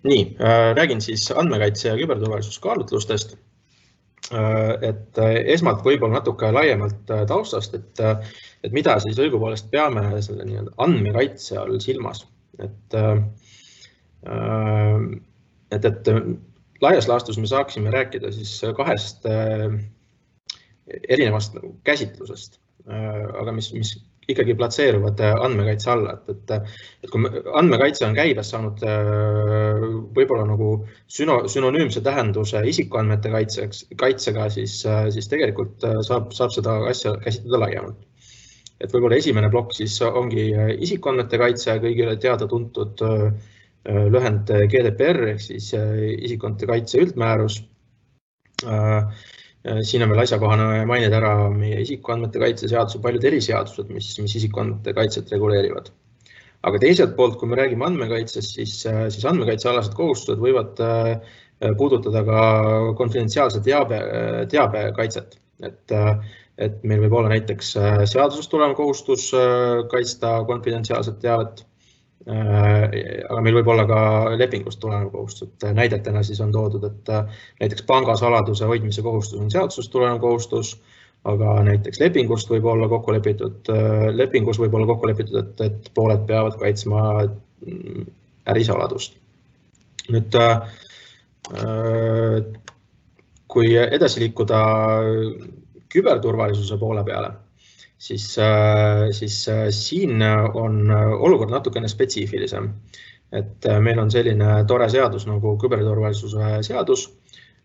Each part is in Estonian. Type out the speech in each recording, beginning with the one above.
Nii, räägin siis andmekaitse ja küberturvalisuskaalutlustest. Et esmalt võib-olla natuke laiemalt taustast, et mida siis õigupoolest peame selle andmekaitse all silmas. Et laias laastus me saaksime rääkida siis kahest erinevast käsitlusest, aga mis ikkagi platseeruvad andmekaitse alla. Et kui andmekaitse on käibes saanud võib-olla nagu sünonüümse tähenduse isikuandmete kaitsega, siis tegelikult saab seda asja käsitleda laiemalt. Et võib-olla esimene plokk siis ongi isikuandmete kaitse, kõigile teada tuntud lühend GDPR ehk siis isikuandmete kaitse üldmäärus. Siin on veel asjakohane mainida ära meie isikuandmete kaitse seadus ja paljud eriseadused, mis isikuandmete kaitset reguleerivad. Aga teiselt poolt, kui me räägime andmekaitsest, siis andmekaitsealased kohustused võivad puudutada ka konfidentsiaalse teabe kaitset. Et meil võib olla näiteks seadusest tulev kohustus kaitsta konfidentsiaalset teavet, aga meil võib olla ka lepingust tulenev kohustus. Näidetena siis on toodud, et näiteks pangasaladuse hoidmise kohustus on seadusest tulenev kohustus, aga näiteks lepingus võib olla kokku lepitud, et pooled peavad kaitsma ärisaladust. Nüüd, kui edasi liikuda küberturvalisuse poole peale, siis siin on olukord natukene spetsiifilisem. Et meil on selline tore seadus nagu küberturvalisuse seadus,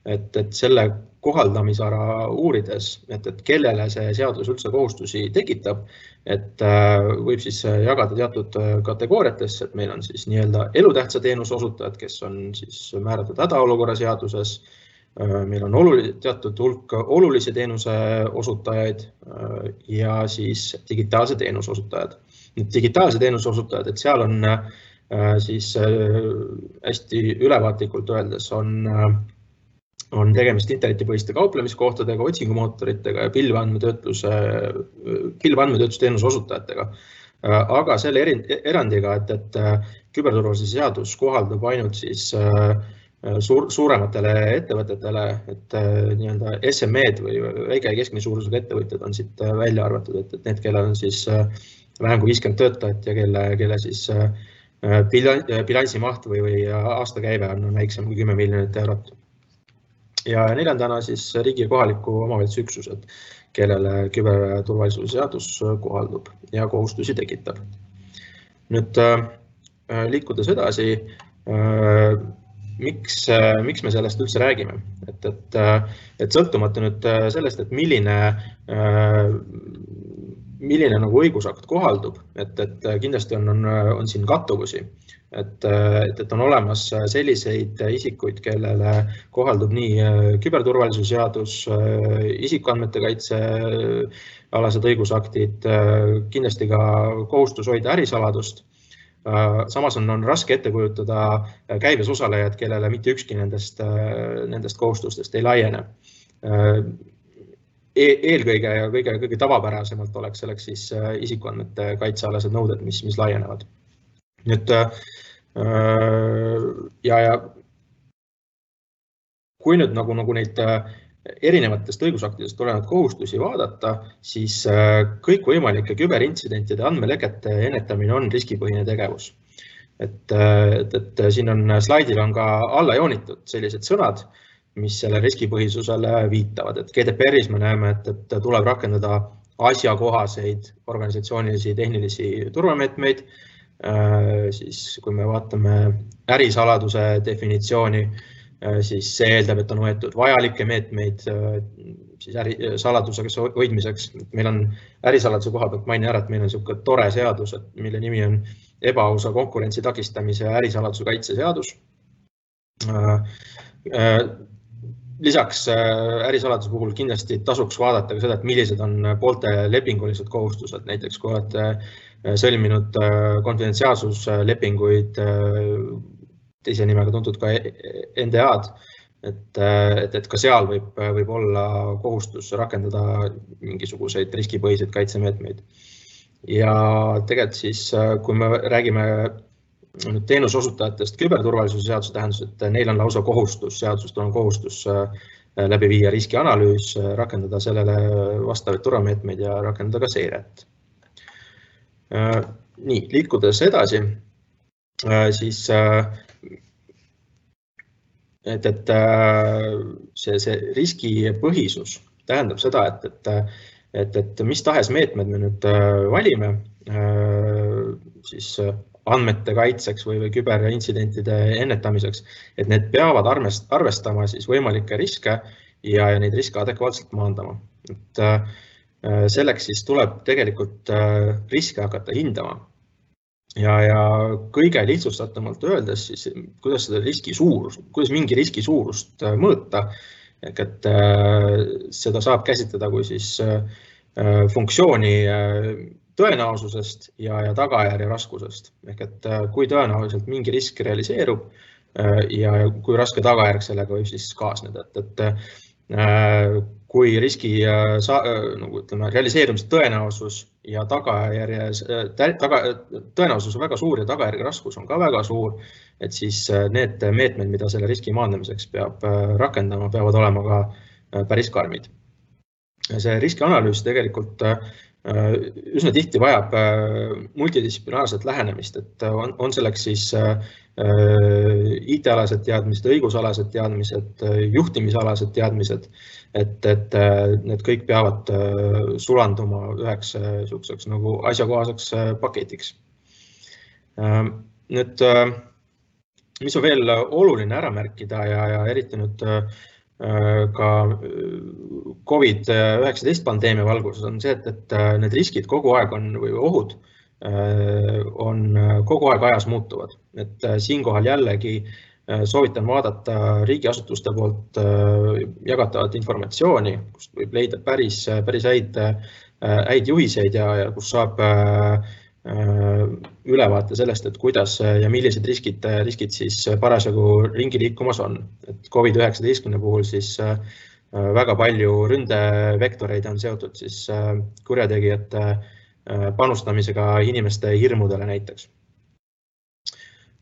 et selle kohaldamisala uurides, et kellele see seadus üldse kohustusi tekitab, et võib siis jagada teatud kategooriatesse, et meil on siis nii-öelda elutähtsa teenuse osutajad, kes on siis määratud hädaolukorra seaduses, meil on teatud hulk olulise teenuse osutajaid ja siis digitaalse teenuse osutajad. Digitaalse teenuse osutajad, et seal on siis hästi ülevaatlikult öeldes on tegemist internetipõhiste kauplemiskohtadega, otsingumootoritega ja pilvandmetöötlusteenuse osutajatega. Aga selle erandiga, et küberturvalisuse seadus kohaldub ainult siis suurematele ettevõtetele, et nii-öelda SME-d või väike ja keskmise suurusega ettevõtjad on siit välja arvatud, et need, kellel on siis vähem kui 50 töötajat ja kelle siis bilansimaht või aastakäive on väiksem kui 10 miljonit eurot. Ja neljandana siis riigi ja kohaliku omavalitsuse üksused, kellele küberturvalisuse seadus kohaldub ja kohustusi tekitab. Nüüd liikudes edasi, miks me sellest üldse räägime? Et sõltumata nüüd sellest, et milline nagu õigusakt kohaldub, et kindlasti on siin kattuvusi, et on olemas selliseid isikuid, kellele kohaldub nii küberturvalisuse seadus, isikuandmete kaitse alased õigusaktid, kindlasti ka kohustus hoida ärisaladust. Samas on raske ette kujutada käibes osalejad, kellele mitte ükski nendest kohustustest ei laiene. Eelkõige ja kõige tavapärasemalt oleks selleks siis isikuandmete kaitsealased nõuded, mis laienevad. Nüüd, ja kui nüüd nagu neid erinevatest õigusaktidest tulenevad kohustusi vaadata, siis kõikvõimalike küberintsidentide andmelekete ennetamine on riskipõhine tegevus. Et siin slaidil on ka alla joonitud sellised sõnad, mis selle riskipõhisusele viitavad. Et GDPR-is me näeme, et tuleb rakendada asjakohaseid organisatsioonilisi tehnilisi turvameetmeid. Siis kui me vaatame ärisaladuse definitsiooni, siis see eeldab, et on võetud vajalikke meetmeid siis ärisaladusega hoidmiseks. Meil on ärisaladuse koha pealt maini ära, et meil on selline tore seadus, mille nimi on ebaausa konkurentsi takistamise ja ärisaladuse kaitse seadus. Lisaks ärisaladuse puhul kindlasti tasuks vaadata ka seda, et millised on poolte lepingulised kohustused, näiteks kui olete sõlminud konfidentsiaalsuslepinguid, teise nimega tuntud ka NDA-d, et ka seal võib olla kohustus rakendada mingisuguseid riskipõhiseid kaitsemeetmeid. Ja tegelikult siis, kui me räägime teenusosutajatest küberturvalisuse seaduse tähendus, et neil on lausa kohustus, seadusest on kohustus läbi viia riskianalüüs, rakendada sellele vastavaid turvameetmeid ja rakendada ka seiret. Nii, liikudes edasi, siis et see riskipõhisus tähendab seda, et mis tahes meetmed me nüüd valime siis andmete kaitseks või küberintsidentide ennetamiseks, et need peavad arvestama siis võimalikke riske ja neid riske adekvaatselt maandama. Et selleks siis tuleb tegelikult riske hakata hindama. Ja kõige lihtsustatumalt öeldes, siis, kuidas mingi riski suurust mõõta, et seda saab käsitleda kui siis funktsiooni tõenäosusest ja tagajärje raskusest. Ehk et kui tõenäoliselt mingi risk realiseerub ja kui raske tagajärg sellega võib siis kaasneda. Et kui riski realiseerumise tõenäosus ja tõenäosus on väga suur ja tagajärge raskus on ka väga suur, et siis need meetmed, mida selle riski maandamiseks peab rakendama, peavad olema ka päris karmid. See riskianalüüs tegelikult üsna tihti vajab multidistsiplinaarset lähenemist, et on selleks siis IT-alased teadmised, õigusalased teadmised, juhtimisalased teadmised, et need kõik peavad sulanduma üheks nagu asjakohaseks paketiks. Nüüd, mis on veel oluline ära märkida ja eriti nüüd ka COVID-19 pandeemia valguses on see, et need riskid kogu aeg või ohud on kogu aeg ajas muutuvad. Et siinkohal jällegi soovitan vaadata riigiasutuste poolt jagatavat informatsiooni, kust võib leida päris häid juhiseid ja kus saab ülevaate sellest, et kuidas ja millised riskid siis parasjagu ringi liikumas on. Et COVID-19 puhul siis väga palju ründevektoreid on seotud siis kurjategijate panustamisega inimeste hirmudele näiteks.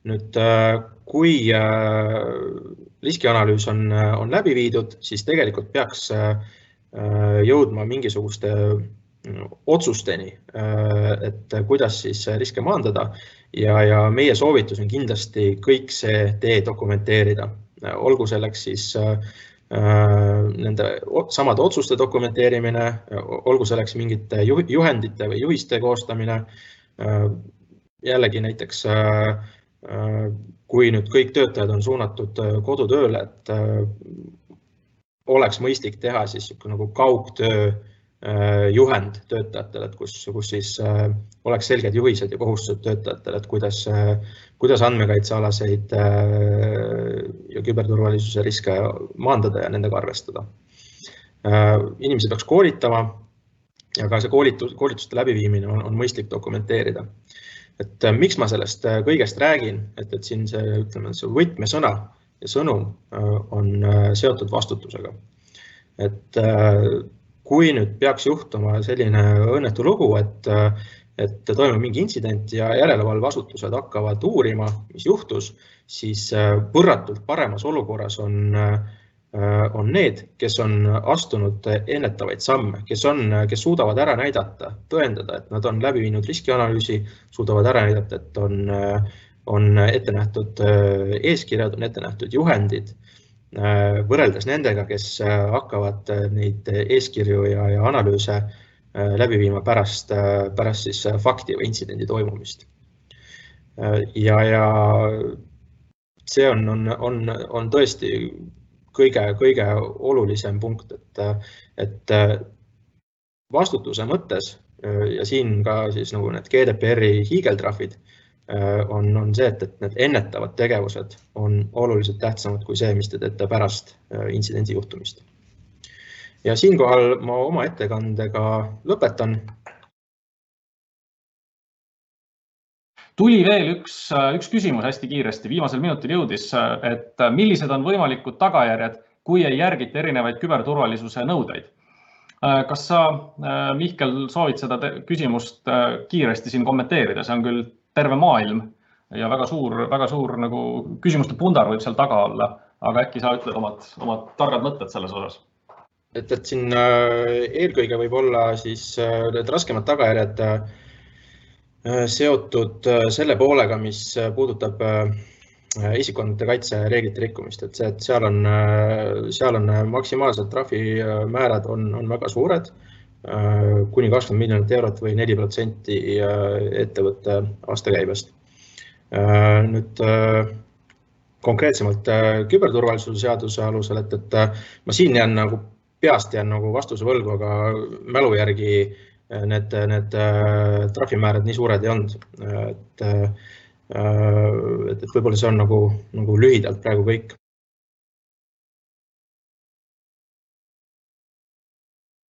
Nüüd, kui riskianalüüs on läbi viidud, siis tegelikult peaks jõudma mingisuguste otsusteni, et kuidas siis riske maandada ja meie soovitus on kindlasti kõik see tee dokumenteerida. Olgu selleks siis nende samade otsuste dokumenteerimine, olgu selleks mingite juhendite või juhiste koostamine. Jällegi näiteks, kui nüüd kõik töötajad on suunatud kodutööle, et oleks mõistlik teha siis nagu kaugtöö juhend töötajatele, kus siis oleks selged juhised ja kohustused töötajatele, et kuidas andmekaitsealaseid ja küberturvalisuse riske maandada ja nendega arvestada. Inimesi peaks koolitama ja ka see koolituste läbiviimine on mõistlik dokumenteerida. Et miks ma sellest kõigest räägin, et siin see võtmesõna ja sõnum on seotud vastutusega. Et kui nüüd peaks juhtuma selline õnnetu lugu, et toimub mingi intsident ja järelevalveasutused hakkavad uurima, mis juhtus, siis võrratult paremas olukorras on need, kes on astunud ennetavaid samme, kes suudavad ära näidata, tõendada, et nad on läbi viinud riskianalüüsi, suudavad ära näidata, et on ette nähtud eeskirjad, on ette nähtud juhendid, võrreldes nendega, kes hakkavad neid eeskirju ja analüüse läbi viima pärast siis fakti või intsidendi toimumist. Ja see on tõesti kõige olulisem punkt, et vastutuse mõttes ja siin ka siis nagu need GDPR-i hiigeltrahvid on see, et need ennetavad tegevused on oluliselt tähtsamad kui see, mis te teete pärast intsidendi juhtumist. Ja siinkohal ma oma ettekandega lõpetan. Tuli veel üks küsimus hästi kiiresti, viimasel minutil jõudis, et millised on võimalikud tagajärjed, kui ei järgita erinevaid küberturvalisuse nõudeid. Kas sa, Mihkel, soovid seda küsimust kiiresti siin kommenteerida? See on küll terve maailm, ja väga suur nagu küsimuste pundar võib seal taga olla, aga äkki sa ütled omad targad mõtted selles osas? Et siin eelkõige võib olla siis need raskemad tagajärjed seotud selle poolega, mis puudutab isikuandmete kaitse reeglite rikkumist, et seal on maksimaalsed trahvimäärad on väga suured, kuni 20 miljonit eurot või 4% ettevõtte aastakäibest. Nüüd konkreetsemalt küberturvalisuse seaduse alusel, et ma siin jään nagu peast vastuse võlgu, aga mälu järgi need trahvimäärad nii suured ei olnud. Et võib-olla see on nagu lühidalt praegu kõik.